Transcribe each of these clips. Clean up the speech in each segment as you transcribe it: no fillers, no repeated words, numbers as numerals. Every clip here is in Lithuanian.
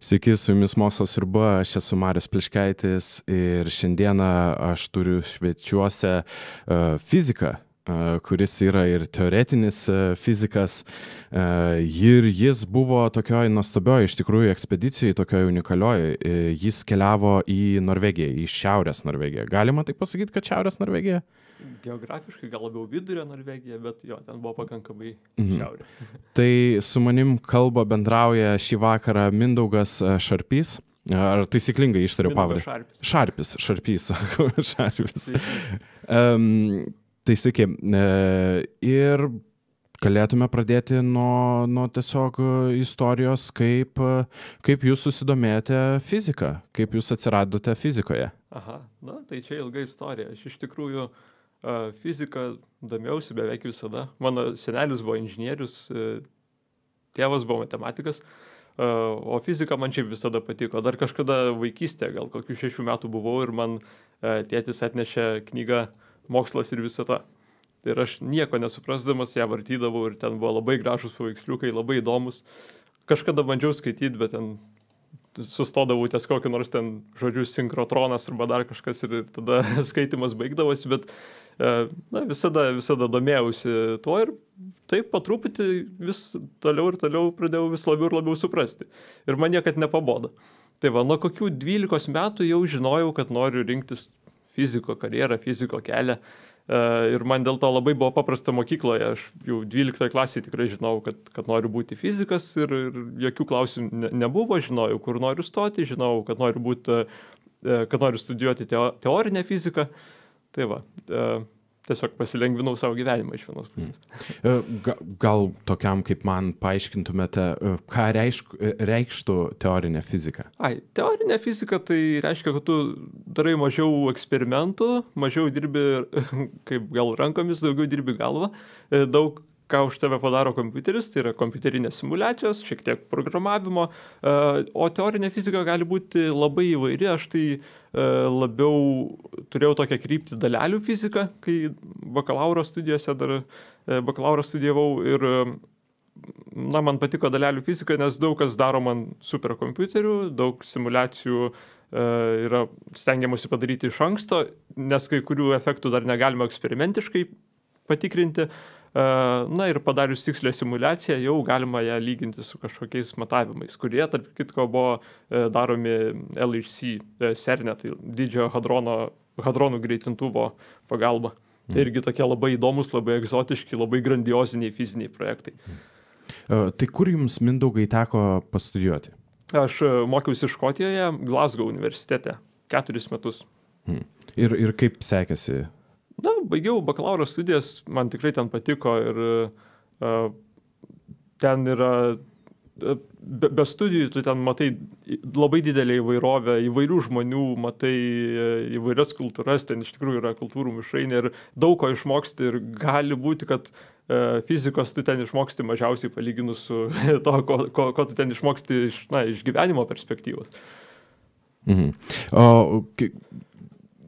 Sveiki, su jumis Mokslas sriuba, aš esu Marius Pliškaitis ir šiandieną aš turiu svečiuose fiziką, kuris yra ir teoretinis fizikas, ir jis buvo tokioj nuostabioj, iš tikrųjų, ekspedicijai, tokioj unikalioj. Jis keliavo į Norvegiją, į Šiaurės Norvegiją. Galima taip pasakyti, kad Šiaurės Norvegija? Geografiškai gal labiau vidurio Norvegija, bet jo, ten buvo pakankamai šiaurė. Tai su manim kalba bendrauja šį vakarą Mindaugas Šarpys. Ar taisyklingai ištariu pavardę? Šarpys. Tai sveiki. Ir galėtume pradėti nuo tiesiog istorijos, kaip jūs susidomėjote fiziką, kaip jūs atsiradote fizikoje. Aha, tai čia ilga istorija. Aš iš tikrųjų fiziką domėjausi beveik visada. Mano senelis buvo inžinierius, tėvas buvo matematikas, o fizika man šiaip visada patiko. Dar kažkada vaikystėje, gal kokių 6 metų buvau ir man tėtis atnešė knygą Mokslas ir visata. Ir aš nieko nesuprasdamas ją vartydavau ir ten buvo labai gražus paveiksliukai, labai įdomus. Kažkada bandžiau skaityti, bet ten sustodavau ties kokį nors ten žodžiu sinkrotronas arba dar kažkas ir tada skaitimas baigdavosi, bet visada domėjausi tuo ir taip po truputį vis toliau ir toliau pradėjau vis labiau ir labiau suprasti. Ir man niekad nepabodo. Tai va, nuo kokių 12 metų jau žinojau, kad noriu rinktis fiziko karjerą, fiziko kelią. Ir man dėl to labai buvo paprasta mokykloje. Aš jau 12 klasėje tikrai žinau, kad noriu būti fizikas ir jokių klausimų nebuvo. Žinojau, kur noriu stoti, žinojau, kad noriu studijuoti teorinę fiziką. Tai va, tiesiog pasilengvinau savo gyvenimą iš vienos pusės. Gal tokiam kaip man paaiškintumėte, ką reikštų teorinė fizika? Teorinė fizika tai reiškia, kad tu darai mažiau eksperimentų, mažiau dirbi kaip gal rankomis, daugiau dirbi galvą, daug ką už tave padaro kompiuteris, tai yra kompiuterinės simulacijos, šiek tiek programavimo, o teorinė fizika gali būti labai įvairi. Aš tai labiau turėjau tokią kryptį dalelių fiziką, kai bakalauro studijose dar bakalauro studijavau ir man patiko dalelių fizika, nes daug kas daro man superkompiuterių, daug simulacijų yra stengiamasi padaryti iš anksto, nes kai kurių efektų dar negalima eksperimentiškai patikrinti. Ir padarius tikslę simulaciją jau galima ją lyginti su kažkokiais matavimais, kurie, tarp kitko, buvo daromi LHC CERN-e, tai didžiojo hadronų greitintuvo pagalba. Tai irgi tokie labai įdomus, labai egzotiški, labai grandioziniai fiziniai projektai. Tai kur jums, Mindaugai, teko pastudijuoti? Aš mokiausi Škotijoje, Glasgow universitete, 4 metus. Ir kaip sekėsi? Baigiau bakalauro studijas, man tikrai ten patiko ir ten yra, be studijų tu ten matai labai didelę įvairovę, įvairių žmonių, matai įvairias kultūras, ten iš tikrųjų yra kultūrų mišrainė ir daug ko išmoksti ir gali būti, kad fizikos tu ten išmoksti mažiausiai palyginus su to, ko tu ten išmoksti iš gyvenimo perspektyvos.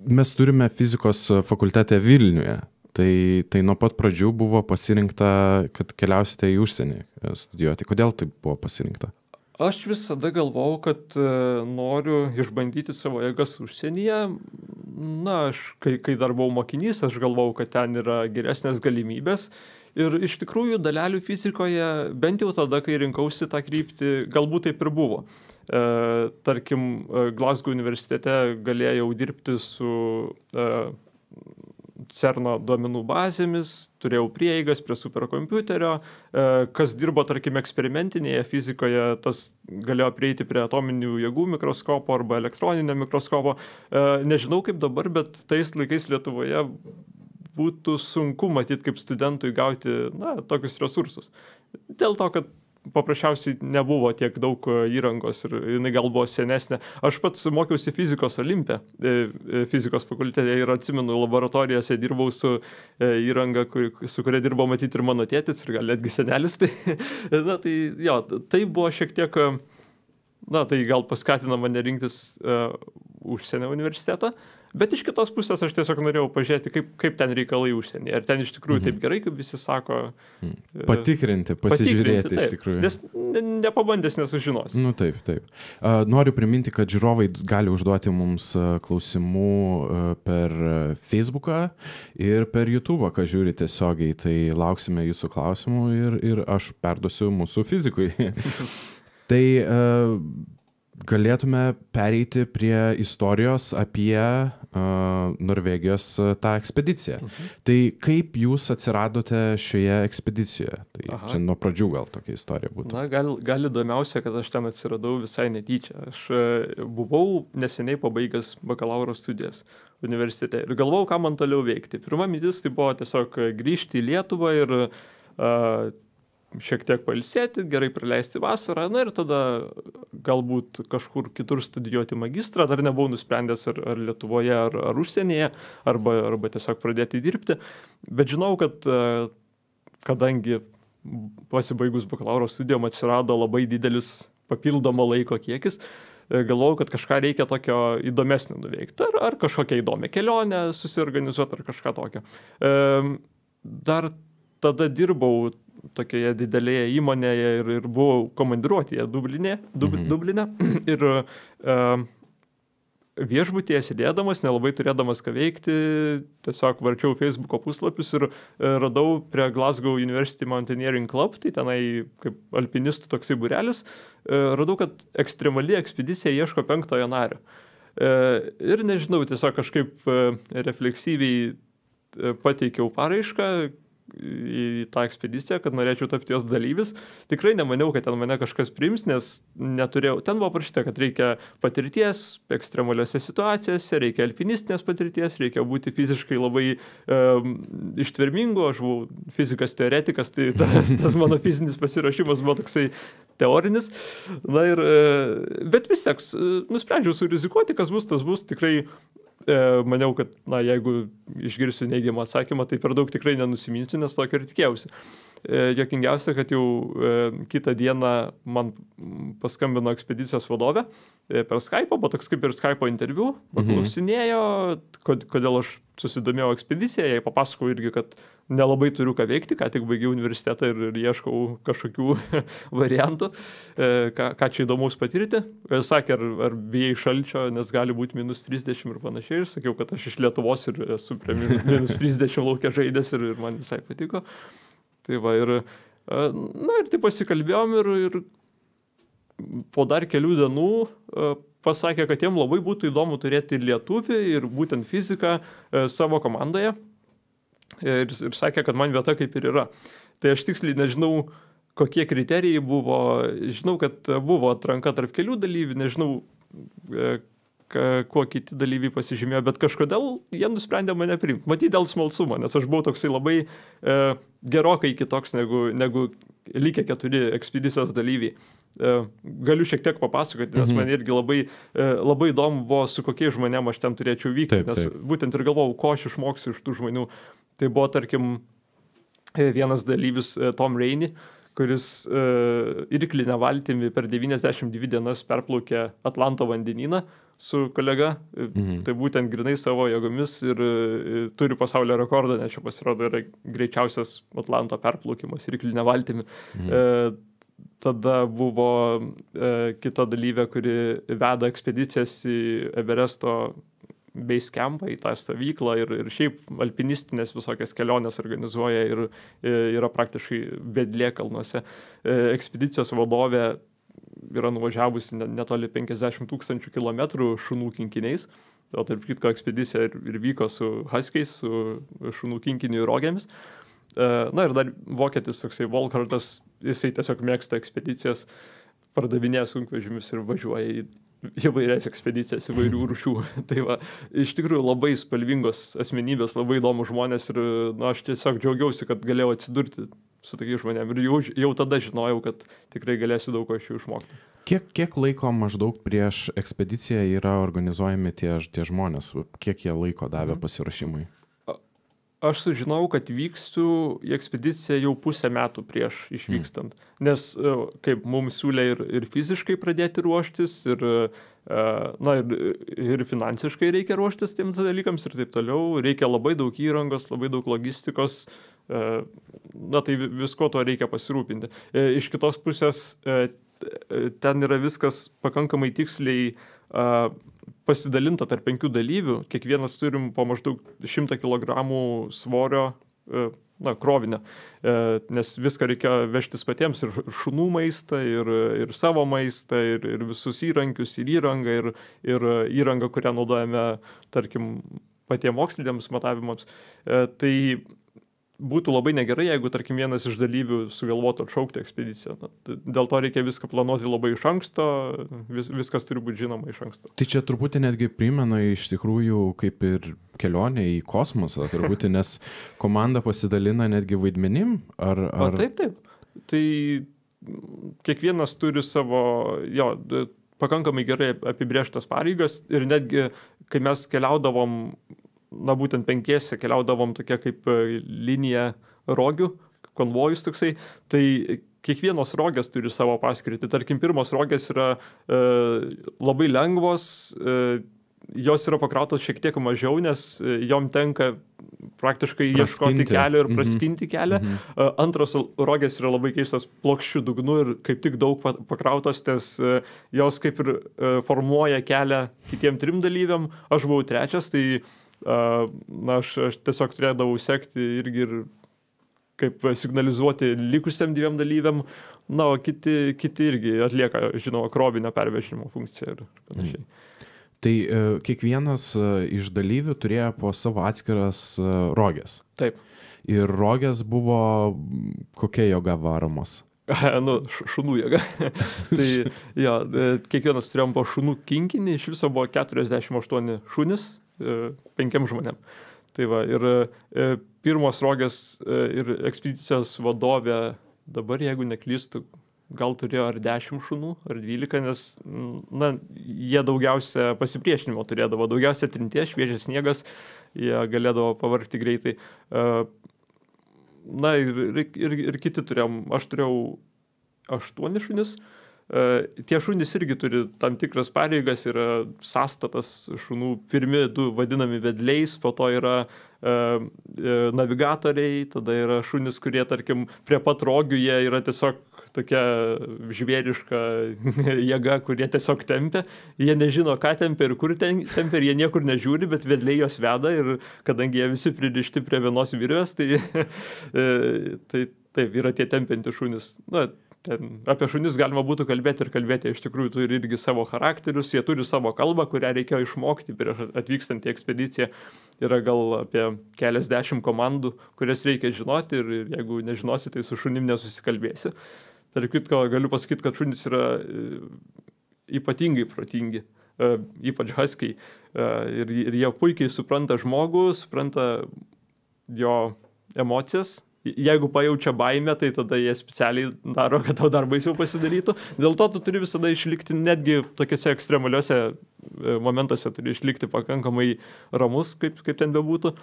Mes turime fizikos fakultete Vilniuje, tai nuo pat pradžių buvo pasirinkta, kad keliausite į užsienį studijuoti. Kodėl taip buvo pasirinkta? Aš visada galvojau, kad noriu išbandyti savo jėgas užsienyje. Kai dar buvau mokinys, aš galvojau, kad ten yra geresnės galimybės. Ir iš tikrųjų dalelių fizikoje, bent jau tada, kai rinkausi tą kryptį, galbūt taip ir buvo. Tarkim, Glasgow universitete galėjau dirbti su CERN-o duomenų bazėmis, turėjau prieigas prie superkompiuterio, kas dirbo, tarkim, eksperimentinėje fizikoje, tas galėjo prieiti prie atominių jėgų mikroskopo arba elektroninio mikroskopo. Nežinau kaip dabar, bet tais laikais Lietuvoje būtų sunku matyti kaip studentui gauti tokius resursus. Dėl to, kad paprasčiausiai nebuvo tiek daug įrangos ir jinai gal buvo senesnė. Aš pats mokiausi fizikos Olimpe, fizikos fakultete ir atsimenu, laboratorijose dirbau su įranga, su kuria dirbo matyti ir mano tėtis ir gal netgi senelis. Tai buvo šiek tiek, tai gal paskatino mane rinktis užsienio universitetą. Bet iš kitos pusės aš tiesiog norėjau pažiūrėti, kaip ten reikalai užsienyje. Ar ten iš tikrųjų taip gerai, kaip visi sako. Patikrinti, pasižiūrėti taip, iš tikrųjų. Nes nepabandęs nesužinos. Nu taip. Noriu priminti, kad žiūrovai gali užduoti mums klausimų per Facebooką ir per YouTube'ą, ką žiūri tiesiogiai. Tai lauksime jūsų klausimų ir aš perduosiu mūsų fizikui. Tai galėtume pereiti prie istorijos apie Norvegijos tą ekspediciją. Tai kaip jūs atsiradote šioje ekspedicijoje? Tai čia nuo pradžių gal tokia istorija būtų. Na, gal įdomiausia, kad aš ten atsiradau visai netyčia. Aš buvau neseniai pabaigęs bakalauro studijas universitete ir galvojau, ką man toliau veikti. Pirma mintis tai buvo tiesiog grįžti į Lietuvą ir šiek tiek pailsėti, gerai praleisti vasarą, na ir tada galbūt kažkur kitur studijuoti magistrą, dar nebuvau nusprendęs ar Lietuvoje, ar užsienyje, arba tiesiog pradėti dirbti. Bet žinau, kad kadangi pasibaigus bakalauro studijom atsirado labai didelis papildomo laiko kiekis, galvojau, kad kažką reikia tokio įdomesnio nuveikti, ar kažkokią įdomią kelionę susiorganizuoti, ar kažką tokio. Dar tada dirbau tokioje didelėje įmonėje ir buvau komandiruotėje Dubline. Ir viešbutyje sėdėdamas, nelabai turėdamas ką veikti, tiesiog varčiau Facebooko puslapius ir radau prie Glasgow University Mountaineering Club, tai tenai kaip alpinistų toksai būrelis, radau, kad ekstremali ekspedicija ieško 5-ojo nario. Ir nežinau, tiesiog kažkaip refleksyviai pateikiau paraišką į tą ekspediciją, kad norėčiau tapti jos dalyvis. Tikrai nemaniau, kad ten mane kažkas priims, nes neturėjau. Ten buvo parašyta, kad reikia patirties ekstremaliose situacijose, reikia alpinistinės patirties, reikia būti fiziškai labai ištvermingu. Aš buvau fizikas teoretikas, tai tas mano fizinis pasiruošimas buvo toksai teorinis. Na ir, bet vis tiek nusprendžiau surizikuoti, kas bus, tas bus. Tikrai maniau, kad jeigu išgirsiu neigiamą atsakymą, tai per daug tikrai nenusiminsiu, nes tokio ir tikėjausi. Jokingiausia, kad jau kitą dieną man paskambino ekspedicijos vadovė per Skype'ą, buvo toks kaip ir Skype'o interviu, paklausinėjo, kodėl aš susidomėjau ekspediciją, jai papasakau irgi, kad nelabai turiu ką veikti, ką tik baigiau universitetą ir ieškau kažkokių variantų, ką čia įdomaus patirti. Sakė, ar bijai šalčio, nes gali būti -30 ir panašiai. Ir sakiau, kad aš iš Lietuvos ir esu prie -30 laukia žaidęs ir man visai patiko. Tai va ir taip pasikalbėjom ir po dar kelių dienų pasakė, kad jiem labai būtų įdomu turėti lietuvį ir būtent fiziką savo komandoje. Ir sakė, kad man vieta kaip ir yra. Tai aš tiksliai nežinau, kokie kriterijai buvo. Žinau, kad buvo atranka tarp kelių dalyvių, nežinau, kuo kiti dalyviai pasižymėjo, bet kažkodėl jie nusprendė mane priimti. Matyt, dėl smalsumo, nes aš buvau toksai labai gerokai kitoks negu likę 4 ekspedicijos dalyviai. Galiu šiek tiek papasakoti, nes man irgi labai įdomu buvo, su kokiais žmonėm aš ten turėčiau vykti, nes būtent ir galvojau, ko aš išmoksiu iš tų žmonių. Tai buvo, tarkim, vienas dalyvis Tom Rainey, kuris irklinę valtimi per 92 dienas perplaukė Atlanto vandenyną su kolega. Tai būtent grinai savo jėgomis ir turi pasaulio rekordą, nes čia pasirodo yra greičiausias Atlanto perplaukimas irklinę valtimi. Tada buvo kita dalyvė, kuri veda ekspedicijas į Everesto base campą, į tą stovyklą ir šiaip alpinistinės visokias kelionės organizuoja ir yra praktiškai vedlė kalnuose. Ekspedicijos vadovė yra nuvažiavusi netoli 50 000 kilometrų šunų kinkiniais. O tarp kitko ekspedicija ir vyko su huskiais, su šunų kinkinių rogėmis. Na ir dar vokietis toksai Volkartas, jisai tiesiog mėgsta ekspedicijas, pardavinėja sunkvežimius ir važiuoja į įvairias ekspedicijas, įvairių rūšių. Tai va, iš tikrųjų labai spalvingos asmenybės, labai įdomų žmonės ir aš tiesiog džiaugiausi, kad galėjau atsidurti su tokiais žmonėm ir jau tada žinojau, kad tikrai galėsiu daug ko iš jų išmokti. Kiek laiko maždaug prieš ekspediciją yra organizuojami tie žmonės? Kiek jie laiko davė pasiruošimui? Aš sužinojau, kad vyksiu į ekspediciją jau 1,5 metų prieš išvykstant, nes kaip mums siūlė ir fiziškai pradėti ruoštis, ir Na ir finansiškai reikia ruoštis tiems dalykams ir taip toliau. Reikia labai daug įrangos, labai daug logistikos. Na tai visko to reikia pasirūpinti. Iš kitos pusės ten yra viskas pakankamai tiksliai pasidalinta tarp 5 dalyvių. Kiekvienas turim po maždaug 100 kg svorio krovinio, nes viską reikia vežtis patiems, ir šunų maistą, ir savo maistą, ir visus įrankius, ir įrangą, ir įrangą, kurią naudojame, tarkim, patiems moksliniams matavimams. Tai būtų labai negerai, jeigu, tarkim, vienas iš dalyvių sugalvotų atšaukti ekspediciją. Dėl to reikia viską planuoti labai iš anksto, viskas turi būti žinoma iš anksto. Tai čia truputį netgi primena iš tikrųjų kaip ir kelionė į kosmosą, turbūt, nes komanda pasidalina netgi vaidmenim, ar... Taip. Tai kiekvienas turi savo, pakankamai gerai apibrėžtas pareigas, ir netgi, kai mes keliaudavom, būtent 5 keliaudavom tokia kaip linija rogių, konvojus toksai, tai kiekvienos rogės turi savo paskirtį. Tarkim, pirmos rogės yra labai lengvos, jos yra pakrautos šiek tiek mažiau, nes jom tenka praktiškai ieškoti kelio ir praskinti kelią. Antros rogės yra labai keistos plokščių dugnu ir kaip tik daug pakrautos, nes jos kaip ir formuoja kelią kitiem 3 dalyviam. Aš buvau 3, tai aš tiesiog turėdavau sekti irgi ir kaip signalizuoti likusiam 2 dalyviam, o kiti irgi atlieka, žinoma, krovinio pervežimo funkciją ir panašiai. Tai kiekvienas iš dalyvių turėjo po savo atskiras rogės. Taip. Ir rogės buvo kokia jėga varomos? Šunų jėga. Tai kiekvienas turėjom po šunų kinkinį, iš viso buvo 48 šunis 5 žmonėm. Tai va, ir pirmos rogės ir ekspedicijos vadovė, dabar jeigu neklystu, gal turėjo ar 10 šunų, ar 12, nes jie daugiausia pasipriešinimo turėdavo, daugiausia trinties, šviežias sniegas, jie galėdavo pavargti greitai. Ir kiti turėjom, aš turėjau 8 šunis. Tie šunys irgi turi tam tikras pareigas, yra sąstatas šunų, pirmi 2 vadinami vedliais, po to yra navigatoriai, tada yra šunys, kurie, tarkim, prie pat rogių jie yra tiesiog tokia žvėriška jėga, kurie tiesiog tempia. Jie nežino, ką tempia ir kur tempia, ir jie niekur nežiūri, bet vedliai jos veda, ir kadangi jie visi pririšti prie vienos virvės, tai taip, yra tie tempiantys šunys. Apie šunis galima būtų kalbėti ir kalbėti, iš tikrųjų turi irgi savo charakterius, jie turi savo kalbą, kurią reikėjo išmokti prieš atvykstant į ekspediciją. Yra gal apie keliasdešimt komandų, kurias reikia žinoti, ir jeigu nežinosi, tai su šunim nesusikalbėsi. Tarp kitko, galiu pasakyti, kad šunys yra ypatingai protingi, ypač huskiai, ir jie puikiai supranta žmogų, supranta jo emocijas. Jeigu pajaučia baimę, tai tada jie specialiai daro, kad tau dar baisiau pasidarytų. Dėl to tu turi visada išlikti, netgi tokiuose ekstremaliuose momentuose turi išlikti pakankamai ramus, kaip ten bebūtų.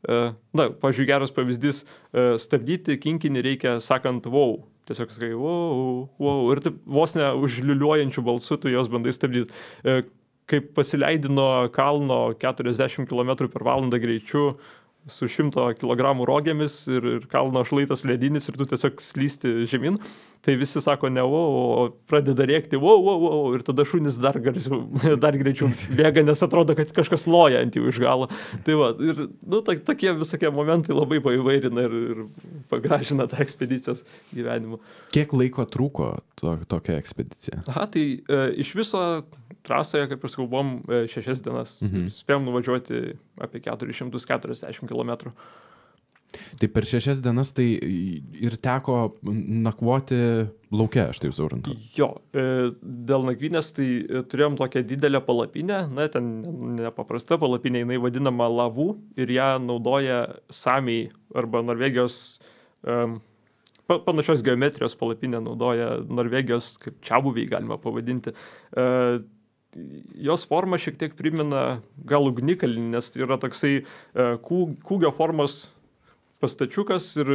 Pavyzdžiui, geras pavyzdys, stabdyti kinkinį reikia sakant wow. Tiesiog sakai wow, wow, ir taip vos ne užliuliuojančių balsų tu jos bandai stabdyti. Kaip pasileidi nuo kalno 40 km/h greičiu, su 100 kg rogėmis, ir kalno šlaitas ledinis, ir tu tiesiog slysti žemyn, tai visi sako ne wow, o pradeda rėkti wow, wow, wow, ir tada šunys dar greičiau bėga, nes atrodo, kad kažkas loja ant jų iš galo. Tai va, ir tokie visokie momentai labai paįvairina ir pagražina tą ekspedicijos gyvenimą. Kiek laiko trūko tokia ekspedicija? Tai iš viso trasoje, kaip ir buvom 6 dienas. Spėjom nuvažiuoti apie 440 km. Tai per 6 dienas tai ir teko nakvoti lauke, aš taip suprantu. Jo, dėl nakvynės tai turėjom tokią didelę palapinę, ten nepaprasta palapinė, jinai vadinama lavų, ir ją naudoja samiai arba Norvegijos, panašios geometrijos palapinę naudoja Norvegijos, kaip čiabuviai galima pavadinti. Jos forma šiek tiek primena gal ugnikalnį, nes yra toksai kūgio formos pastačiukas ir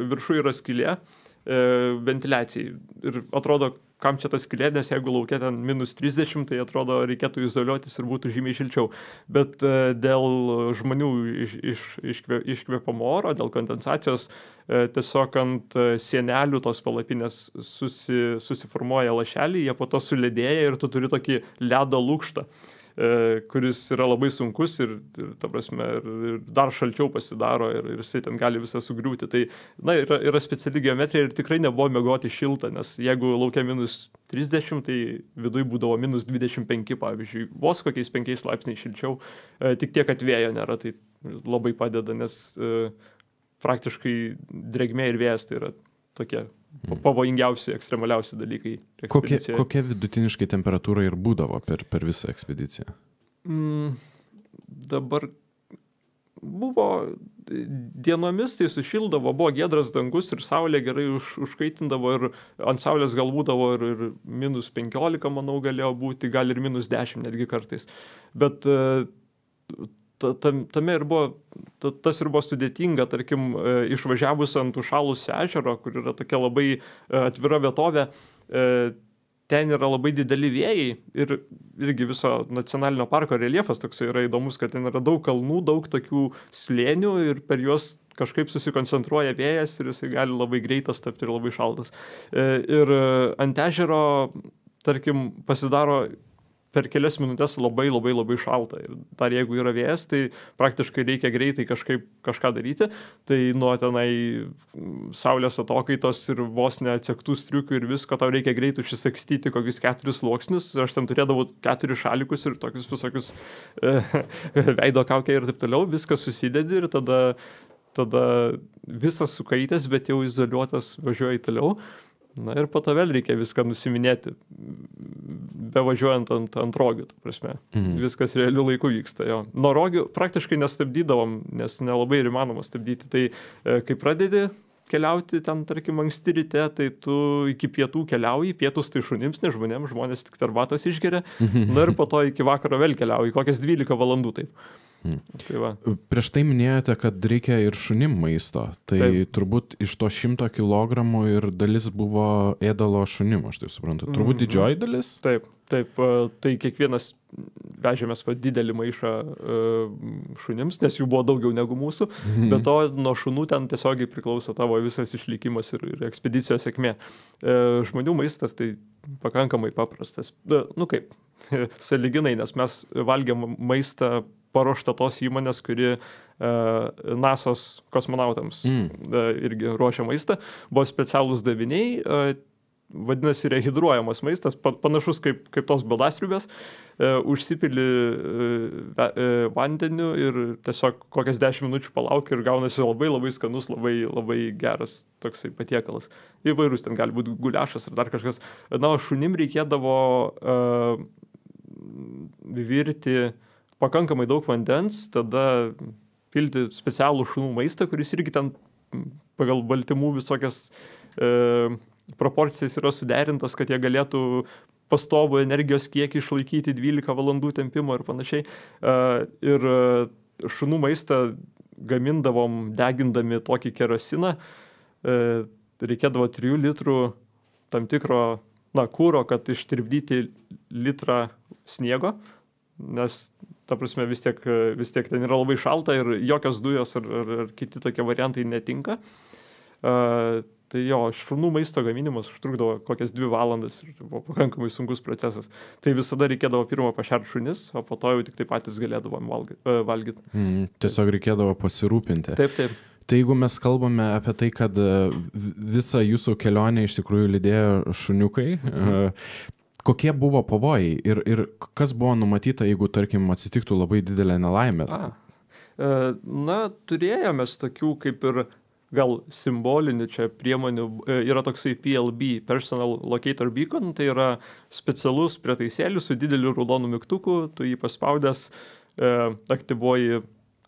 viršų yra skylė ventiliacijai. Ir atrodo, kam čia tas skylė, nes jeigu laukia ten -30, tai atrodo reikėtų izoliuotis ir būtų žymiai šilčiau. Bet dėl žmonių iškvėpamo oro, dėl kondensacijos, tiesiog ant sienelių tos palapinės susiformuoja lašeliai, jie po to suledėja ir tu turi tokį ledo lukštą, kuris yra labai sunkus ir ta prasme, ir dar šalčiau pasidaro ir jisai ten gali visą sugriūti. Tai, na, yra speciali geometrija ir tikrai nebuvo miegoti šilta, nes jeigu laukia -30, tai viduj būdavo -25, pavyzdžiui, vos kokiais 5 laipsniais šilčiau, tik tiek, kad vėjo nėra, tai labai padeda, nes praktiškai drėgmė ir vėjas tai yra tokie pavojingiausi, ekstremaliausi dalykai. Kokia vidutiniškai temperatūra ir būdavo per visą ekspediciją? Dabar buvo dienomis, tai sušildavo, buvo giedras dangus ir saulė gerai užkaitindavo ir ant saulės gal būdavo ir -15, manau, galėjo būti, gal ir -10 netgi kartais. Bet tame ir buvo, tas ir buvo sudėtinga, tarkim, išvažiavus ant užšalusio ežero, kur yra tokia labai atvira vietovė, ten yra labai dideli vėjai ir irgi viso nacionalinio parko reljefas toksai yra įdomus, kad ten yra daug kalnų, daug tokių slėnių ir per juos kažkaip susikoncentruoja vėjas ir jisai gali labai greitas tapti ir labai šaltas. Ir ant ežero, tarkim, pasidaro per kelias minutės labai šalta. Ir dar jeigu yra vėjas, tai praktiškai reikia greitai kažką daryti. Tai nuo tenai saulės atokaitos ir vos neatsektų striukių ir visko, tau reikia greitai užsisakstyti kokius 4 sluoksnius. Aš ten turėdavau 4 šalikus ir tokius visokius veido kaukę ir taip toliau. Viskas susidedi ir tada visas sukaitęs, bet jau izoliuotas važiuoji toliau. Na ir po to vėl reikia viską nusiminėti, bevažiuojant ant rogių, ta prasme. Viskas realiu laiku vyksta, jo. Nuo rogių praktiškai nestabdydavom, nes nelabai ir įmanoma stabdyti. Tai kai pradedi keliauti ten, tarkim, anksti ryte, tai tu iki pietų keliauji, pietus tai šunims, ne žmonėms, žmonės tik arbatos išgeria, na ir po to iki vakaro vėl keliauji, kokias 12 valandų taip. Tai va. Prieš tai minėjote, kad reikia ir šunim maisto. Tai taip. Turbūt iš to 100 kilogramų ir dalis buvo ėdalo šunim, aš tai suprantu. Turbūt didžioji dalis? Taip. Tai kiekvienas vežėmės didelį maišą šunims, nes jų buvo daugiau negu mūsų. Bet to nuo šunų ten tiesiogiai priklauso tavo visas išlikimas ir ekspedicijos sėkmė. Žmonių maistas tai pakankamai paprastas. Nu kaip, sąlyginai, nes mes valgėm maistą paruošta tos įmonės, kuri NASA's kosmonautams irgi ruošia maistą. Buvo specialūs daviniai, vadinasi rehidruojamas maistas, panašus kaip tos baldasriubės, užsipili vandeniu ir tiesiog kokias 10 minučių palauki ir gaunasi labai skanus, labai geras toksai patiekalas. Įvairūs ten gali būti guliašas ir dar kažkas. Na, šunim reikėdavo virti pakankamai daug vandens, tada pilti specialų šunų maistą, kuris irgi ten pagal baltymų visokias proporcijas yra suderintas, kad jie galėtų pastovų energijos kiekį išlaikyti 12 valandų tempimo ir panašiai. Ir šunų maistą gamindavom degindami tokį kerosiną. Reikėdavo 3 litrų tam tikro kuro, kad ištirpdyti litrą sniego, nes ta prasme vis tiek ten yra labai šalta ir jokios dujos ar kiti tokie variantai netinka. Tai jo, šunų maisto gaminimas užtrukdavo kokias 2 valandas ir buvo pakankamai sunkus procesas. Tai visada reikėdavo pirmą pašert šunis, o po to jau tik tai patys galėdavom valgyti. Tiesiog reikėdavo pasirūpinti. Taip. Tai jeigu mes kalbame apie tai, kad visą jūsų kelionę iš tikrųjų lydėjo šuniukai, kokie buvo pavojai ir kas buvo numatyta, jeigu, tarkim, atsitiktų labai didelė nelaimė? Na, turėjome tokių kaip ir gal simbolinių čia priemonių. Yra toksai PLB, Personal Locator Beacon, tai yra specialus prietaisėlis su dideliu raudonu mygtuku, tu jį paspaudęs aktyvuoji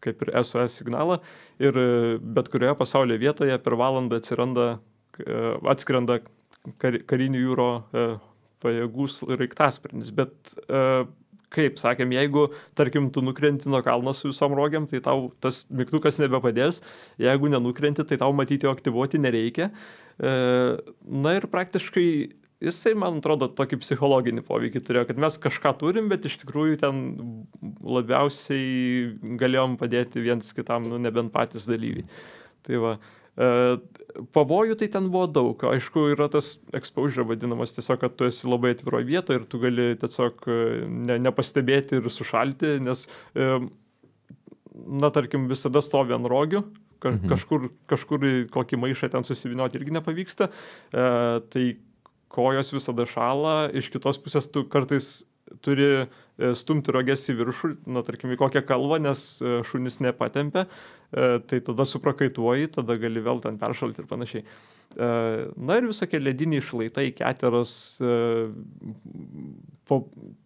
kaip ir SOS signalą ir bet kurioje pasaulio vietoje per valandą atskrenda karinių jūro pajėgų raiktasparnis. Bet kaip sakėm, jeigu, tarkim, tu nukrenti nuo kalno su visom rogiam, tai tau tas mygtukas nebepadės. Jeigu nenukrenti, tai tau matyti jo aktyvuoti nereikia. Na ir praktiškai jisai, man atrodo, tokį psichologinį poveikį turėjo, kad mes kažką turim, bet iš tikrųjų ten labiausiai galėjom padėti viens kitam, nu, nebent patys dalyviai. Tai va, pavojų tai ten buvo daug. Aišku, yra tas exposure vadinamas tiesiog, kad tu esi labai atviroje vietoje ir tu gali tiesiog nepastebėti ir sušalti, nes, na, tarkim, visada stovi ant rogių, kažkur kokį maišą ten susivinioti irgi nepavyksta, tai kojos visada šala, iš kitos pusės tu kartais turi stumti roges į viršų, na, tarkim, į kokią kalvą, nes šunis nepatempia, tai tada suprakaituoji, tada gali vėl ten peršalti ir panašiai. Na ir visokie lediniai šlaitai, keteros,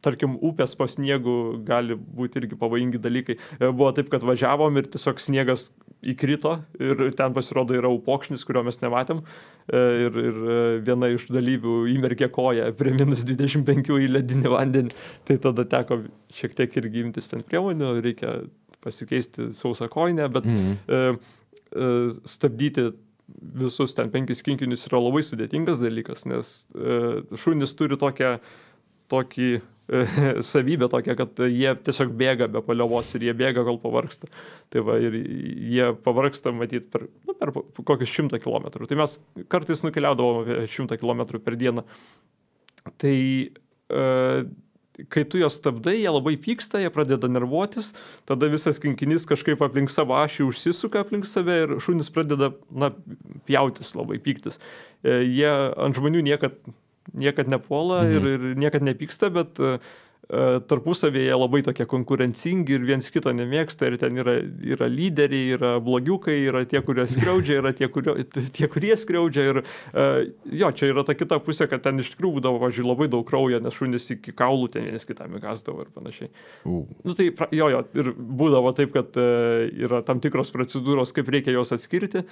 tarkim, upės po sniegu gali būti irgi pavojingi dalykai. Buvo taip, kad važiavom ir tiesiog sniegas įkrito ir ten pasirodo yra upokšnis, kurio mes nematėm, ir viena iš dalyvių įmerkė koją prie -25 į ledinį vandenį, tai tada teko šiek tiek irgi imtis ten priemonių, reikia pasikeisti sausą kojinę, bet stabdyti visus ten 5 kinkinius yra labai sudėtingas dalykas, nes šunys turi tokį savybę tokią, kad jie tiesiog bėga be paliovos ir jie bėga, kol pavargsta. Tai va, ir jie pavargsta, matyt, per kokius 100 kilometrų. Tai mes kartais nukeliaudavom apie 100 kilometrų per dieną. Tai kai tu juos stabdai, jie labai pyksta, jie pradeda nervuotis, tada visas kinkinys kažkaip aplink savo ašį užsisuka aplink save ir šunys pradeda, na, pjautis, labai pyktis. Jie ant žmonių niekad nepuola ir niekad nepyksta, bet tarpusavėje labai tokie konkurencingi ir viens kito nemėgsta ir ten yra lyderiai, yra blogiukai, yra tie, kurie skriaudžia, yra tie, kurie skriaudžia ir jo, čia yra ta kita pusė, kad ten iš tikrųjų būdavo, važiuoju, labai daug kraujo, nes šunys iki kaulų ten vienas kitam įgasdavo ir panašiai. Nu tai jo, ir būdavo taip, kad yra tam tikros procedūros, kaip reikia jos atskirti.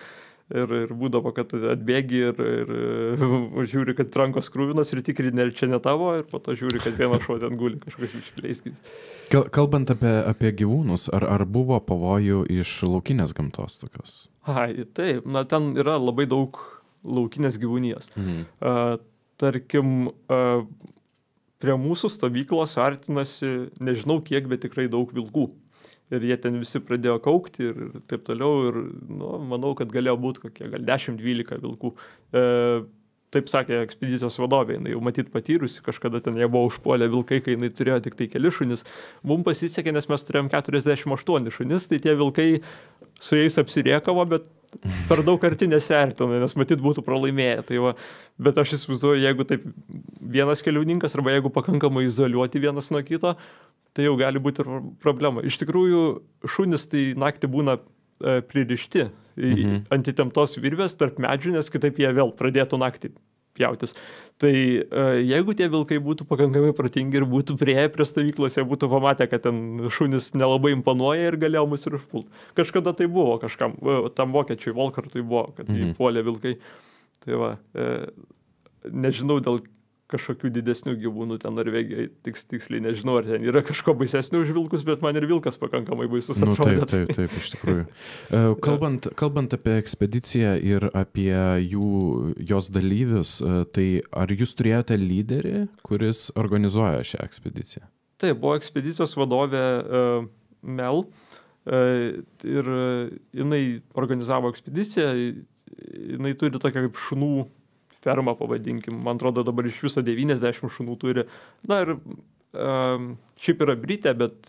Ir būdavo, kad atbėgi ir žiūri, kad rankos krūvinos ir tikrini, ar čia ne tavo, ir po to žiūri, kad vienas šuo ten guli kažkokiais iškeliais. Kalbant apie gyvūnus, ar buvo pavojų iš laukinės gamtos tokios? Taip, na ten yra labai daug laukinės gyvūnijos. Tarkim, prie mūsų stovyklos artinasi, nežinau kiek, bet tikrai daug vilkų. Ir jie ten visi pradėjo kaukti ir taip toliau. Ir manau, kad galėjo būti kokie gal 10-12 vilkų. Taip sakė ekspedicijos vadovė, jinai jau matyt patyrusi, kažkada ten jie buvo užpuolę vilkai, kai jinai turėjo tik tai keli šunis. Mums pasisekė, nes mes turėjom 48 šunis, tai tie vilkai su jais apsiriekavo, bet per daug arti nesiartino, nes matyt būtų pralaimėję. Tai va, bet aš įsivaizduoju, jeigu taip vienas keliauninkas arba jeigu pakankamai izoliuoti vienas nuo kito, tai jau gali būti ir problema. Iš tikrųjų, šunis tai naktį būna pririšti ant įtemptos virvės tarp medžių, nes kitaip jie vėl pradėtų naktį pjautis. Tai jeigu tie vilkai būtų pakankamai protingi ir būtų priėję prie stovyklos, jie būtų pamatę, kad ten šunis nelabai imponuoja ir galėjo mus ir užpult. Kažkada tai buvo kažkam, tam vokiečiui Volkartui buvo, kad jį puolė vilkai. Tai va, nežinau dėl kažkokių didesnių gyvūnų ten Norvegijai, tiksliai nežinau, ar ten yra kažko baisesnių už vilkus, bet man ir vilkas pakankamai baisus atrodė. Taip, iš tikrųjų. Kalbant apie ekspediciją ir apie jos dalyvius, tai ar jūs turėjote lyderį, kuris organizuoja šią ekspediciją? Taip, buvo ekspedicijos vadovė Mel ir jinai organizavo ekspediciją, jinai turi tokią kaip šunų fermą, pavadinkim. Man atrodo, dabar iš viso 90 šunų turi. Na ir šiaip yra Britė, bet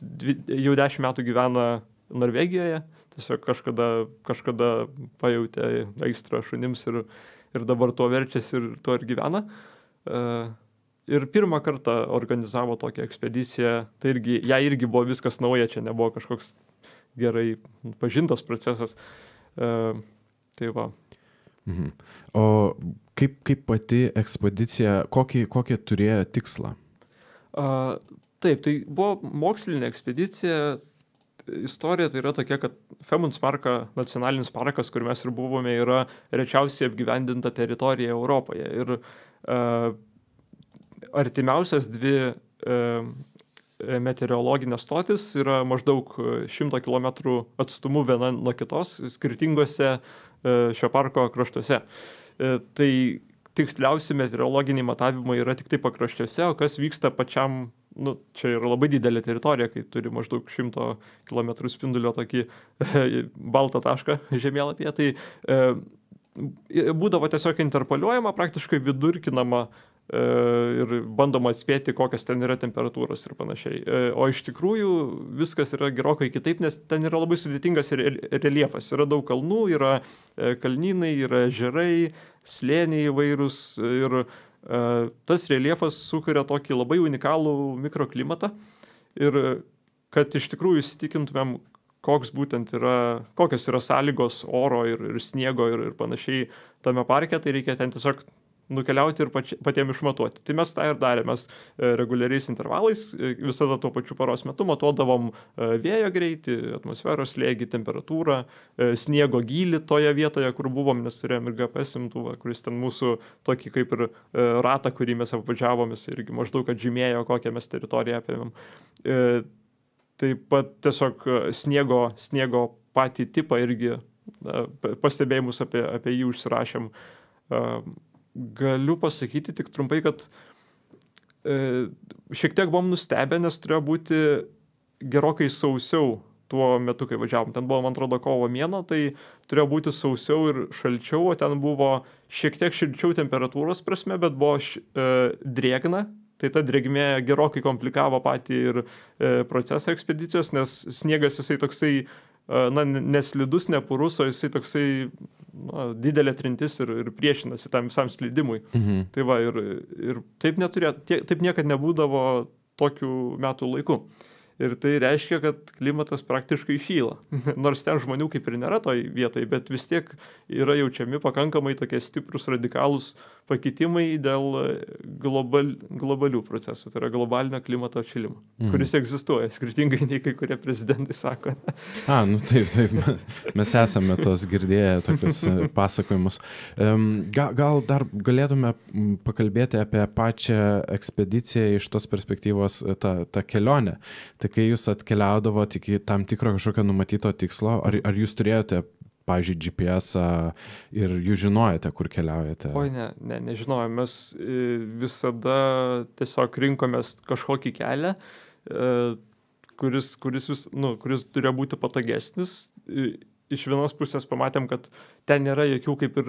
jau 10 metų gyvena Norvegijoje. Tiesiog kažkada pajautė aistrą šunims ir dabar tuo verčiasi ir tuo ir gyvena. Ir pirmą kartą organizavo tokią ekspediciją. Tai jai irgi buvo viskas nauja, čia nebuvo kažkoks gerai pažintas procesas. Tai va. O kaip pati ekspedicija, kokį turėjo tikslą? Taip, tai buvo mokslinė ekspedicija. Istorija tai yra tokia, kad Femundsmarka nacionalinis parkas, kur mes ir buvome, yra rečiausiai apgyvendinta teritorija Europoje. Ir artimiausias dvi meteorologinės stotis yra maždaug 100 km atstumu viena nuo kitos, skirtingose šio parko kraštuose. Tai tiksliausi meteorologiniai matavimai yra tik tai pakraščiuose, o kas vyksta pačiam, čia yra labai didelė teritorija, kai turi maždaug 100 km spindulio tokį baltą tašką žemėlapyje, tai būdavo tiesiog interpoliuojama, praktiškai vidurkinama ir bandoma atspėti, kokios ten yra temperatūros ir panašiai. O iš tikrųjų viskas yra gerokai kitaip, nes ten yra labai sudėtingas reljefas. Yra daug kalnų, yra kalnynai, yra ežerai, slėniai įvairūs ir tas reljefas sukuria tokį labai unikalų mikroklimatą. Ir kad iš tikrųjų įsitikintumėm, kokios yra sąlygos oro ir sniego ir panašiai tame parke, tai reikia ten tiesiog nukeliauti ir patiem išmatuoti. Tai mes tą ir darėme. Mes reguliariais intervalais visada tuo pačiu paros metu matuodavom vėjo greitį, atmosferos slėgį, temperatūrą, sniego gylį toje vietoje, kur buvom, nes turėjom ir GPS imtuvą, kuris ten mūsų tokį kaip ir ratą, kurį mes apvažiavom, irgi maždaug atžymėjo, kokią mes teritoriją apėmėm. Taip pat tiesiog sniego patį tipą irgi pastebėjimus apie jį užsirašėm. Galiu pasakyti tik trumpai, kad šiek tiek buvom nustebę, nes turėjo būti gerokai sausiau tuo metu, kai važiavom. Ten buvo, man atrodo, kovo mėnuo, tai turėjo būti sausiau ir šalčiau, o ten buvo šiek tiek šilčiau temperatūros prasme, bet buvo drėgna. Tai ta drėgmė gerokai komplikavo patį ir procesą ekspedicijos, nes sniegas jisai toksai neslidus, nepurus, o jisai toksai didelė trintis ir priešinasi tam visam slydimui. Tai va, ir taip niekad nebūdavo tokių metų laikų. Ir tai reiškia, kad klimatas praktiškai šyla. Nors ten žmonių kaip ir nėra toj vietoj, bet vis tiek yra jaučiami pakankamai tokie stiprus radikalūs pakitimai dėl globalių procesų. Tai yra globalinio klimato atšilimo, kuris egzistuoja, skirtingai nei kai kurie prezidentai sako. Taip. Mes esame tos girdėję tokius pasakojimus. Gal dar galėtume pakalbėti apie pačią ekspediciją iš tos perspektyvos, tą kelionę. Tai kai jūs atkeliaudavote iki tam tikro kažkokio numatyto tikslo, ar jūs turėjote, pavyzdžiui, GPS-ą ir jūs žinojate, kur keliaujate? Oi, nežinojom. Mes visada tiesiog rinkomės kažkokį kelią, kuris turėjo būti patogesnis. Iš vienos pusės pamatėm, kad ten nėra jokių kaip ir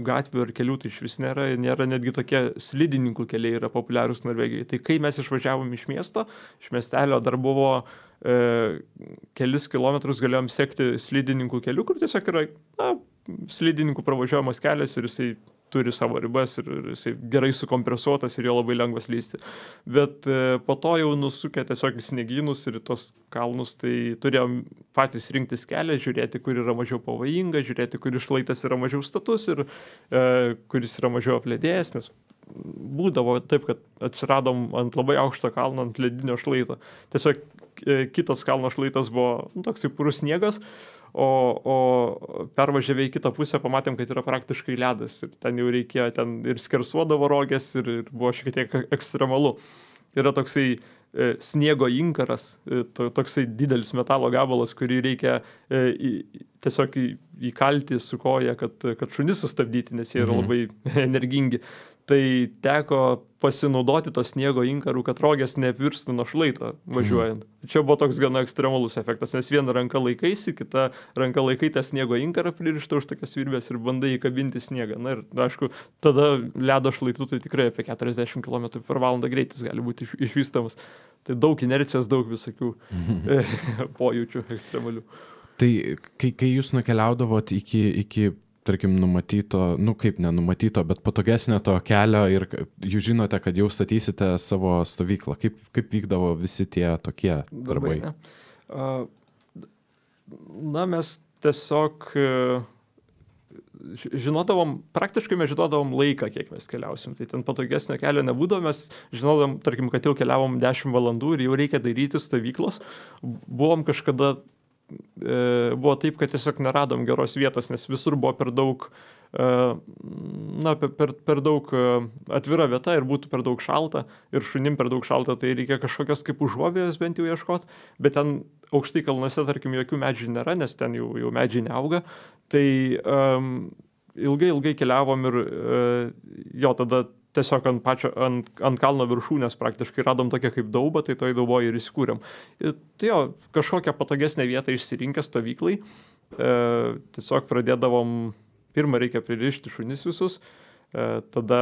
gatvių ar kelių, tai iš vis nėra netgi tokie slidininkų keliai yra populiarūs Norvegijoje. Tai kai mes išvažiavom iš miesto, iš miestelio dar buvo kelis kilometrus galėjom sekti slidininkų kelių, kur tiesiog yra slidininkų pravažiuojamas kelias ir jisai turi savo ribas ir jisai gerai sukompresuotas ir jo labai lengvas lysti. Bet po to jau nusukę tiesiog į sniegynus ir į tos kalnus, tai turėjom patys rinktis kelią, žiūrėti, kur yra mažiau pavojinga, žiūrėti, kur šlaitas yra mažiau status ir kuris yra mažiau apledėjęs, nes būdavo taip, kad atsiradom ant labai aukšto kalno, ant ledinio šlaito. Tiesiog kitas kalno šlaitas buvo toksai purus sniegas, o pervažiavę į kitą pusę pamatėm, kad yra praktiškai ledas ir ten jau reikėjo, ten ir skersuodavo rogės ir buvo šiek tiek ekstremalu. Yra toksai sniego inkaras, toksai didelis metalo gabalas, kurį reikia tiesiog įkalti su koja, kad šunis sustabdyti, nes jie yra labai energingi. Tai teko pasinaudoti to sniego inkarų, kad rogės neapvirstų nuo šlaito važiuojant. Čia buvo toks gana ekstremalus efektas, nes viena ranka laikaisi, kita ranka laikai tą sniego inkarą pririštą už tokias virbės ir bandai įkabinti sniegą. Na ir, aišku, tada ledo šlaitų tai tikrai apie 40 km/h greitis gali būti išvystamas. Tai daug inercijos, daug visokių pojūčių ekstremalių. Tai kai jūs nukeliaudavot iki tarkim, numatyto, kaip nenumatyto, bet patogesnio to kelio ir jūs žinote, kad jau statysite savo stovyklą. Kaip vykdavo visi tie tokie darbai? Mes tiesiog praktiškai mes žinodavom laiką, kiek mes keliausim. Tai ten patogesnio kelio nebūdavo, mes žinodavom, tarkim, kad jau keliavom 10 valandų ir jau reikia daryti stovyklos. Buvom kažkada buvo taip, kad tiesiog neradom geros vietos, nes visur buvo per daug per daug atvira vieta ir būtų per daug šalta ir šunim per daug šalta, tai reikia kažkokios kaip užuovėjos bent jau ieškoti, bet ten aukštai kalnuose, tarkim, jokių medžių nėra, nes ten jau medžiai neauga, tai ilgai keliavom ir jo, tada tiesiog ant kalno viršūnės praktiškai radom tokią kaip daubą, tai toj dauboje ir įsikūrėm. Ir tai jo, kažkokią patogesnę vietą išsirinkę stovyklai, tiesiog pradėdavom, pirmą reikia pririšti šunis visus, tada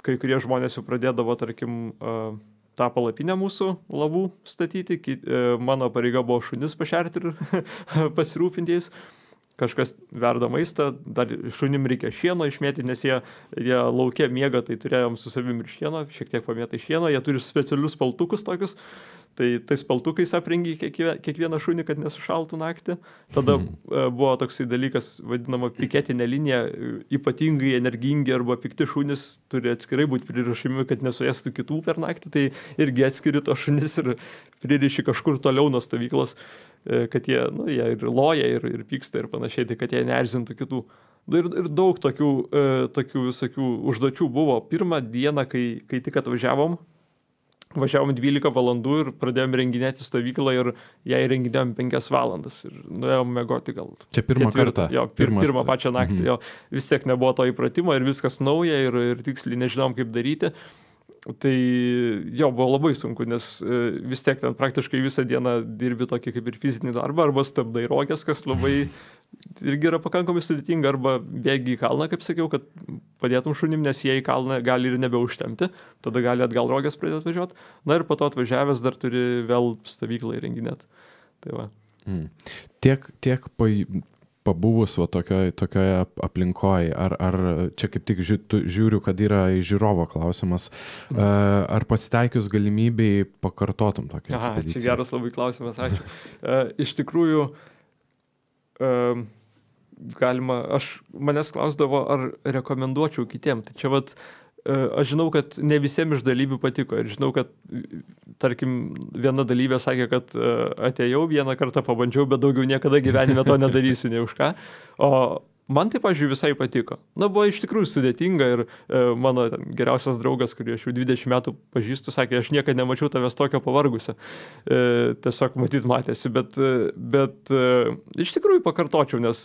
kai kurie žmonės jau pradėdavo, tarkim, tą palapinę mūsų lavų statyti, mano pareiga buvo šunis pašerti ir pasirūpinti jais. Kažkas verda maistą, dar šunim reikia šieno išmėti, nes jie lauke miega, tai turėjom su savim ir šieno, šiek tiek pamėtai šieno, jie turi specialius paltukus tokius, tai tais paltukais aprengi kiekvieną šunį, kad nesušaltų naktį. Tada buvo toksai dalykas, vadinama piketinė linija, ypatingai energingi arba pikti šunys turi atskirai būti pririšimi, kad nesuėstų kitų per naktį, tai irgi atskiri to šunis ir pririši kažkur toliau nuo stovyklos, kad jie ir loja, ir pyksta ir panašiai, tai kad jie neerzintų kitų. Ir daug tokių visokių užduočių buvo. Pirmą dieną, kai tik atvažiavom 12 valandų ir pradėjom renginėti stovyklą ir ją įrenginėjom 5 valandas ir nuėjom mėgoti gal. Čia pirmą kartą? Jo, pirmą pačią naktį. Jo, vis tiek nebuvo to įpratimo ir viskas nauja ir tiksliai nežinom, kaip daryti. Tai jo, buvo labai sunku, nes vis tiek ten praktiškai visą dieną dirbi tokį kaip ir fizinį darbą, arba stabdai rogės, kas labai irgi yra pakankamai sudėtinga, arba bėgi į kalną, kaip sakiau, kad padėtum šunim, nes jie į kalną gali ir nebeužtemti, tada gali atgal rogės pradėti važiuoti. Na ir po to atvažiavęs dar turi vėl stovyklą įrenginėti. Tai va. Tiek pabuvus tokioje aplinkoje, ar čia kaip tik žiūriu, kad yra žiūrovo klausimas, ar pasitaikius galimybei pakartotum tokią ekspediciją? Čia geras labai klausimas, ačiū. Iš tikrųjų, manęs klausdavo, ar rekomenduočiau kitiem. Tai čia aš žinau, kad ne visiems iš dalyvių patiko ir žinau, kad, tarkim, viena dalyvė sakė, kad atėjau vieną kartą, pabandžiau, bet daugiau niekada gyvenime to nedarysiu, nei už ką. O man tai, pažiūrėjau, visai patiko. Buvo iš tikrųjų sudėtinga ir mano geriausias draugas, kurį aš jau 20 metų pažįstu, sakė, aš niekada nemačiau tavęs tokio pavargusio. Tiesiog matyt matėsi, bet iš tikrųjų pakartočiau, nes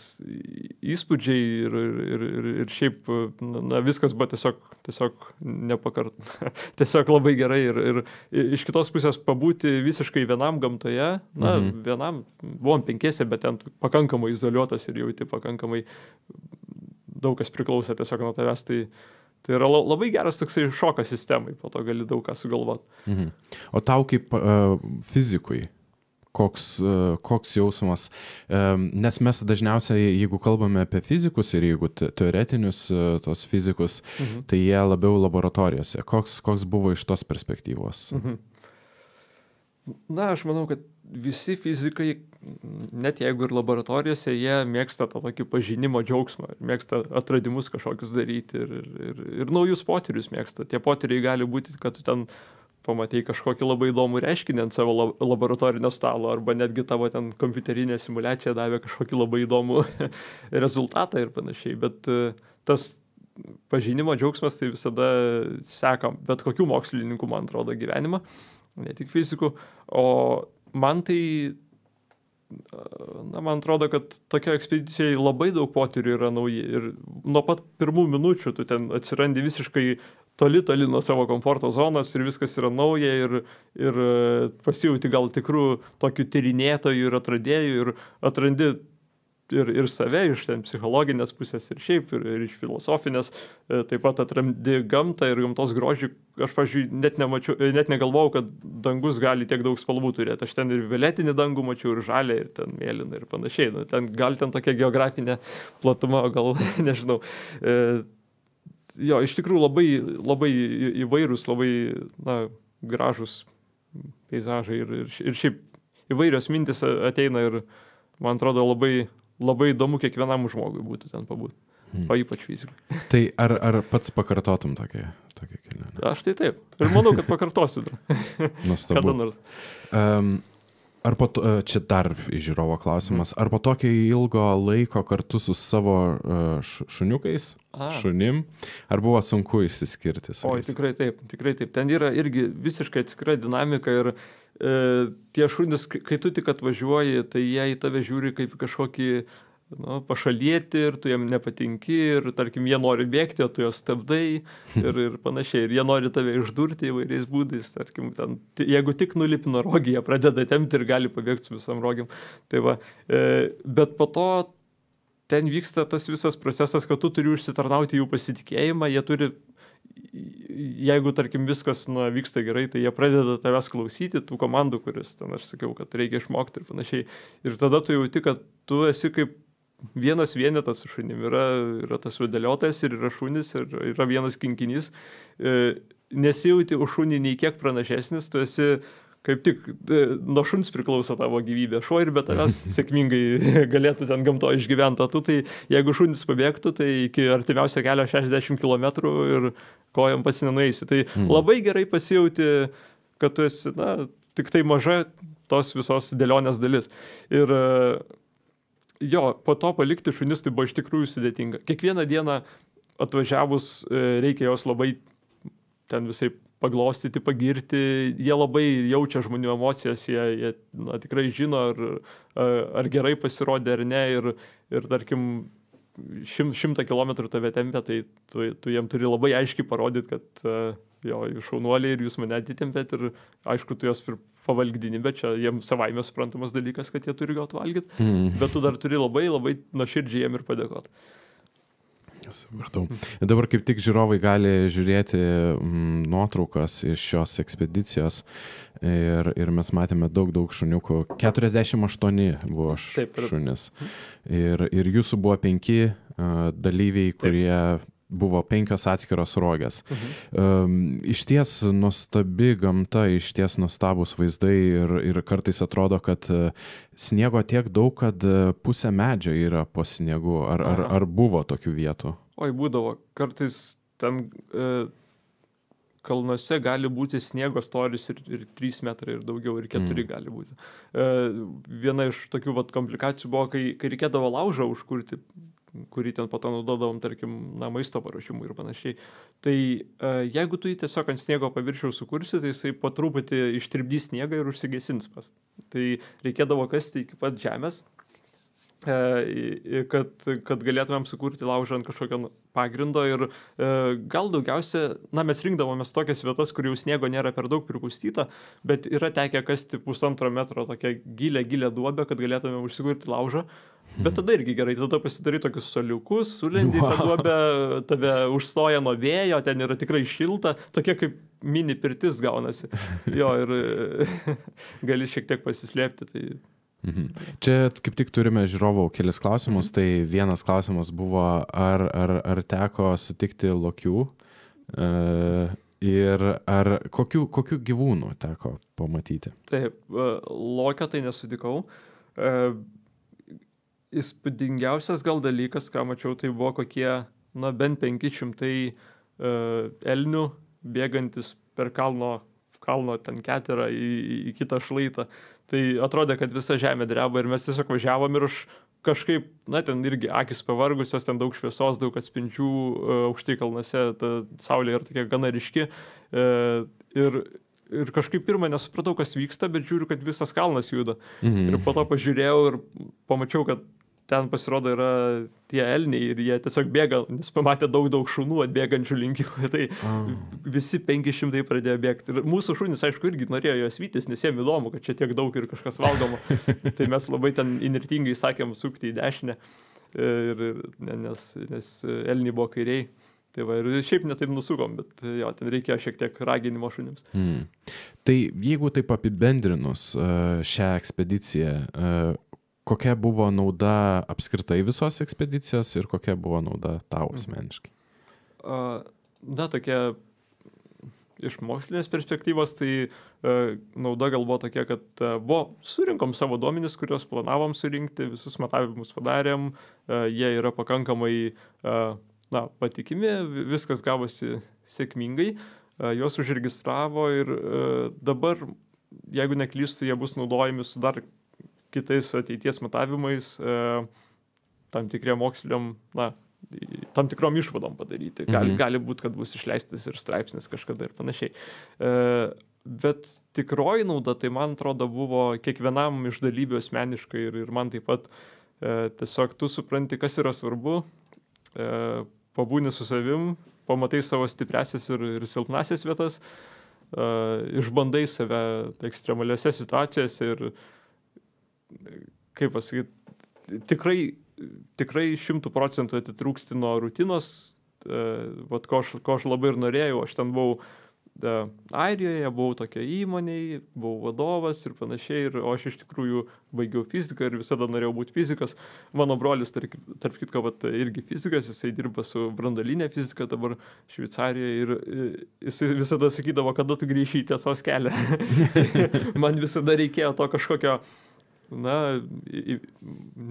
įspūdžiai ir šiaip viskas buvo tiesiog tiesiog labai gerai ir iš kitos pusės pabūti visiškai vienam gamtoje, vienam, buvom 5, bet ten pakankamai izoliuotas ir jauti pakankamai daug kas priklauso tiesiog nuo tavęs, tai yra labai geras toksai šokas sistemai, po to gali daug ką sugalvoti. O tau kaip fizikui, koks jausmas, nes mes dažniausiai, jeigu kalbame apie fizikus ir jeigu teoretinius tos fizikus, tai jie labiau laboratorijose. Koks buvo iš tos perspektyvos? Na, aš manau, kad visi fizikai, net jeigu ir laboratorijose, jie mėgsta tą tokį pažinimo džiaugsmą, mėgsta atradimus kažkokius daryti ir naujus potyrius mėgsta. Tie potyriai gali būti, kad tu ten pamatei kažkokį labai įdomų reiškinį ant savo laboratorinio stalo, arba netgi tavo ten kompiuterinė simulacija davė kažkokį labai įdomų rezultatą ir panašiai. Bet tas pažinimo džiaugsmas tai visada seka bet kokių mokslininkų, man atrodo, gyvenimą, ne tik fizikų. O man tai, man atrodo, kad tokio ekspedicijai labai daug potyrių yra nauji. Ir nuo pat pirmų minučių tu ten atsirandi visiškai toli nuo savo komforto zonos ir viskas yra nauja ir pasijauti gal tikrų tokių tyrinėtojų ir atradėjų ir atrandi ir save iš ten psichologinės pusės ir šiaip, ir iš filosofinės, taip pat atrandi gamtą ir gamtos grožį. Aš, pavyzdžiui, net negalvojau, kad dangus gali tiek daug spalvų turėti. Aš ten ir violetinį dangų mačiau, ir žalią, ir ten mėlyną, ir panašiai. Gal ten tokia geografinė platuma, gal nežinau. Jo, iš tikrųjų labai įvairūs, labai gražus peizažai ir šiaip įvairios mintis ateina ir man atrodo labai įdomu kiekvienam žmogui būtų ten pabūti, o ypač fizikui. Tai ar pats pakartotum tokią kelionę? Aš tai taip. Ir manau, kad pakartosiu dar. Nuostabu. Kada nors. Ar čia dar žiūrovo klausimas, ar po tokio ilgo laiko kartu su savo šuniukais, šunim, ar buvo sunku išsiskirti su jais? Tikrai taip. Ten yra irgi visiškai atskira dinamika ir tie šunys, kai tu tik atvažiuoji, tai jie į tave žiūri kaip kažkokį pašalieti ir tu jiem nepatinki ir, tarkim, jie nori bėgti, o tu juos stabdai ir panašiai. Ir jie nori tave išdurti įvairiais būdais. Tarkim, ten, jeigu tik nulipi nuo rogį, jie pradeda tempti ir gali pabėgti su visam rogiam. Tai va, bet po to ten vyksta tas visas procesas, kad tu turi užsitarnauti jų pasitikėjimą, jie turi, jeigu, tarkim, viskas vyksta gerai, tai jie pradeda tavęs klausyti, tų komandų, kuris ten aš sakiau, kad reikia išmokti ir panašiai. Ir tada tu jauti, kad tu esi kaip vienas vienetas su šunim. Yra tas vedėliotojas ir yra šunis, ir yra vienas kinkinys. Nesijauti už šunį nei kiek pranašesnis, tu esi kaip tik nuo šuns priklauso tavo gyvybė. Šuo ir be tavęs sėkmingai galėtų ten gamto išgyventi. Tu tai, jeigu šunis pabėgtų, tai iki artimiausio kelio 60 km ir kojom pats nenueisi. Tai labai gerai pasijauti, kad tu esi, tik tai maža tos visos dėlionės dalis. Ir jo, po to palikti šunis tai buvo iš tikrųjų sudėtinga. Kiekvieną dieną atvažiavus reikia jos labai ten visai paglostyti, pagirti, jie labai jaučia žmonių emocijas, jie tikrai žino, ar gerai pasirodė ar ne, ir tarkim, 100 kilometrų tave tempia, tai tu jiem turi labai aiškiai parodyti, kad jo, jūs šaunuoliai ir jūs mane atitempėt ir aišku, tu jos pavalgdini, bet čia jiems savaime suprantamas dalykas, kad jie turi gauti valgyti, bet tu dar turi labai nuoširdžiai jiem ir padėkoti. Supratau. Dabar kaip tik žiūrovai gali žiūrėti nuotraukas iš šios ekspedicijos ir mes matėme daug šuniukų. 48 buvo šunis. Ir jūsų buvo 5 dalyviai, kurie buvo 5 atskiros rogės. Iš ties nuostabi gamta, iš ties nuostabus vaizdai ir kartais atrodo, kad sniego tiek daug, kad pusė medžio yra po sniegu. Ar buvo tokių vietų? Oi, būdavo. Kartais ten kalnuose gali būti sniego storis ir 3 metrai ir daugiau, ir 4 gali būti. Viena iš tokių komplikacijų buvo, kai reikėdavo laužą užkurti, kurį ten po to naudodavom, tarkim, maisto paruošimui ir panašiai. Tai jeigu tu jį tiesiog ant sniego paviršiaus sukursi, tai jisai po truputį ištirpdys sniegą ir užsigesins pas. Tai reikėdavo kasti iki pat žemės, kad galėtumėm sukurti laužą ant kažkokio pagrindo ir gal daugiausia, mes rinkdavomės tokias vietas, kur jau sniego nėra per daug pripustyta, bet yra tekę kasti 1,5 metro tokią gilę duobę, kad galėtumėm užsikurti laužą. Bet tada irgi gerai, tada pasidarai tokius soliukus, sulendi tą duobę, tave užstoja nuo vėjo, ten yra tikrai šilta, tokia kaip mini pirtis gaunasi. Jo, ir gali šiek tiek pasislėpti. Tai... Čia kaip tik turime žiūrovų kelis klausimus, tai vienas klausimas buvo, ar teko sutikti lokių ir ar kokių gyvūnų teko pamatyti? Taip, lokio tai nesutikau. Įspūdingiausias gal dalykas, ką mačiau, tai buvo kokie, bent 500 elnių bėgantis per kalno ten keterą į kitą šlaitą. Tai atrodė, kad visa žemė dreba ir mes tiesiog važiavom ir kažkaip, ten irgi akis pavargusios, ten daug šviesos, daug atspindžių, aukštai kalnuose, ta saulė yra tokia gana ryški. Ir kažkaip pirmą nesupratau, kas vyksta, bet žiūriu, kad visas kalnas juda. Ir po to pažiūrėjau ir pamačiau, kad ten pasirodo yra tie elniai ir jie tiesiog bėga, nes pamatė daug šunų atbėgančių link jų. Tai visi 500 pradėjo bėgti. Ir mūsų šunys, aišku, irgi norėjo juos vytis, nes jiem įdomu, kad čia tiek daug ir kažkas valgoma. Tai mes labai ten inirtingai sakėm sukti į dešinę, nes elniai buvo kairiai. Tai va, ir šiaip netaip nusukom, bet jo, ten reikėjo šiek tiek raginimo šunims. Tai jeigu taip apibendrinus šią ekspediciją, kokia buvo nauda apskritai visos ekspedicijos ir kokia buvo nauda tau asmeniškai? Tokia iš mokslinės perspektyvos, tai nauda gal buvo tokia, kad surinkom savo duomenis, kuriuos planavom surinkti, visus matavimus padarėm, jie yra pakankamai patikimi, viskas gavosi sėkmingai, juos užregistravo ir dabar, jeigu neklystu, jie bus naudojami su dar kitais ateities matavimais, tam tikriem moksliniam, tam tikrom išvadom padaryti. Gali būti, kad bus išleistas ir straipsnis kažkada ir panašiai. Bet tikroji nauda, tai man atrodo, buvo kiekvienam iš dalyvių asmeniškai ir man taip pat Tiesiog tu supranti, kas yra svarbu, pabūni su savim, pamatai savo stipriasias ir silpnasias vietas, išbandai save ekstremaliose situacijose ir, kaip pasakyti, tikrai 100% atitrūksti nuo rutinos, ko aš labai ir norėjau. Aš ten buvau Airijoje, buvau tokia įmonėje, buvau vadovas ir panašiai, o aš iš tikrųjų baigiau fiziką ir visada norėjau būti fizikas. Mano brolis, tarp kitko, irgi fizikas, jisai dirba su branduoline fizika dabar Šveicarijoje ir jisai visada sakydavo, kada tu grįši į tiesos kelią. Man visada reikėjo to kažkokio,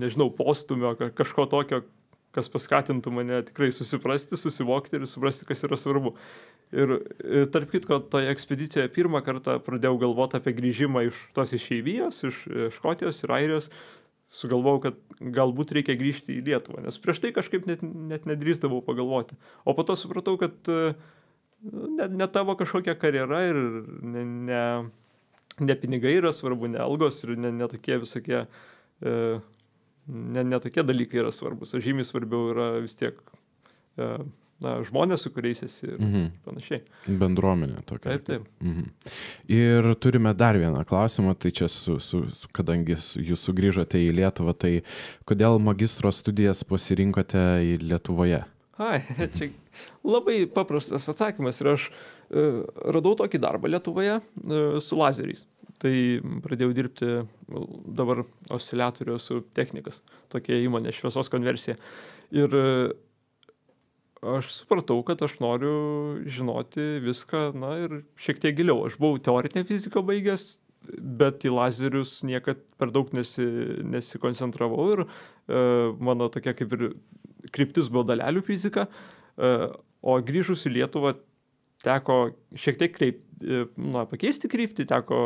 nežinau, postumio, kažko tokio, kas paskatintų mane tikrai susiprasti, susivokti ir suprasti, kas yra svarbu. Ir tarp kitko, toje ekspedicijoje pirmą kartą pradėjau galvoti apie grįžimą iš tos išeivijos, iš Škotijos ir Airijos. Sugalvojau, kad galbūt reikia grįžti į Lietuvą, nes prieš tai kažkaip net nedrįsdavau pagalvoti. O po to supratau, kad ne tavo kažkokia karjera ir ne pinigai yra svarbu, ne algos ir ne tokie visokie... Ne tokie dalykai yra svarbus, o žymiai svarbiau yra vis tiek žmonės, su kuriais esi ir panašiai. Bendruomenė tokia. Taip. Ir turime dar vieną klausimą, tai čia, kadangi jūs sugrįžote į Lietuvą, tai kodėl magistro studijas pasirinkote į Lietuvoje? Čia labai paprastas atsakymas ir aš radau tokį darbą Lietuvoje su lazeriais. Tai pradėjau dirbti dabar osciliatorių su technikas, tokia įmonė šviesos konversija. Ir aš supratau, kad aš noriu žinoti viską, ir šiek tiek giliau. Aš buvau teorinę fiziką baigęs, bet į lazerius niekad per daug nesikoncentravau ir mano tokia kaip ir kryptis buvo dalelių fizika, o grįžus į Lietuvą teko šiek tiek pakeisti kryptį, teko,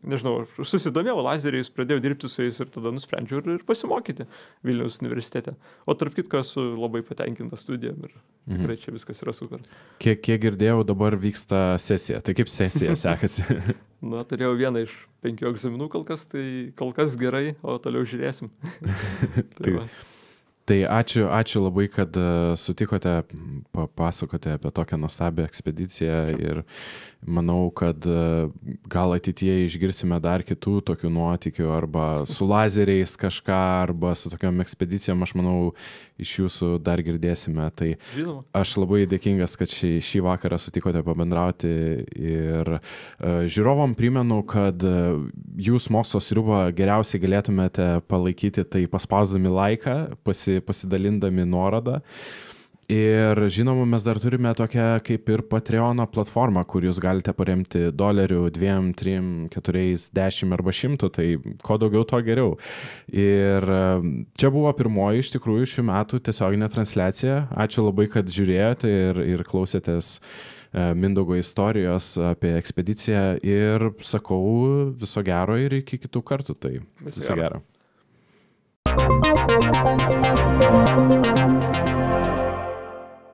nežinau, susidomėjau lazeriais, pradėjau dirbti su jais ir tada nusprendžiau ir pasimokyti Vilniaus universitete. O tarp kitko esu labai patenkintas studijom ir tikrai čia viskas yra super. Kiek girdėjau, dabar vyksta sesija. Tai kaip sesija sekasi? Turėjau vieną iš 5 egzaminų kol kas gerai, o toliau žiūrėsim. Tai ačiū labai, kad sutikote papasakoti apie tokią nuostabią ekspediciją ir manau, kad gal ateityje išgirsime dar kitų tokių nuotykių arba su lazeriais kažką, arba su tokiom ekspedicijom, aš manau, iš jūsų dar girdėsime. Tai aš labai dėkingas, kad šį vakarą sutikote pabendrauti ir žiūrovom primenu, kad jūs mokslo sriubą geriausiai galėtumėte palaikyti tai paspausdami laiką, pasidalindami nuorodą. Ir žinoma, mes dar turime tokią kaip ir Patreono platformą, kur jūs galite paremti $1, 2, 3, 4, 10 arba 100, tai ko daugiau, to geriau. Ir čia buvo pirmoji iš tikrųjų šių metų tiesioginė transliacija. Ačiū labai, kad žiūrėjote ir klausėtės Mindaugo istorijos apie ekspediciją ir sakau viso gero ir iki kitų kartų. Tai viso gero.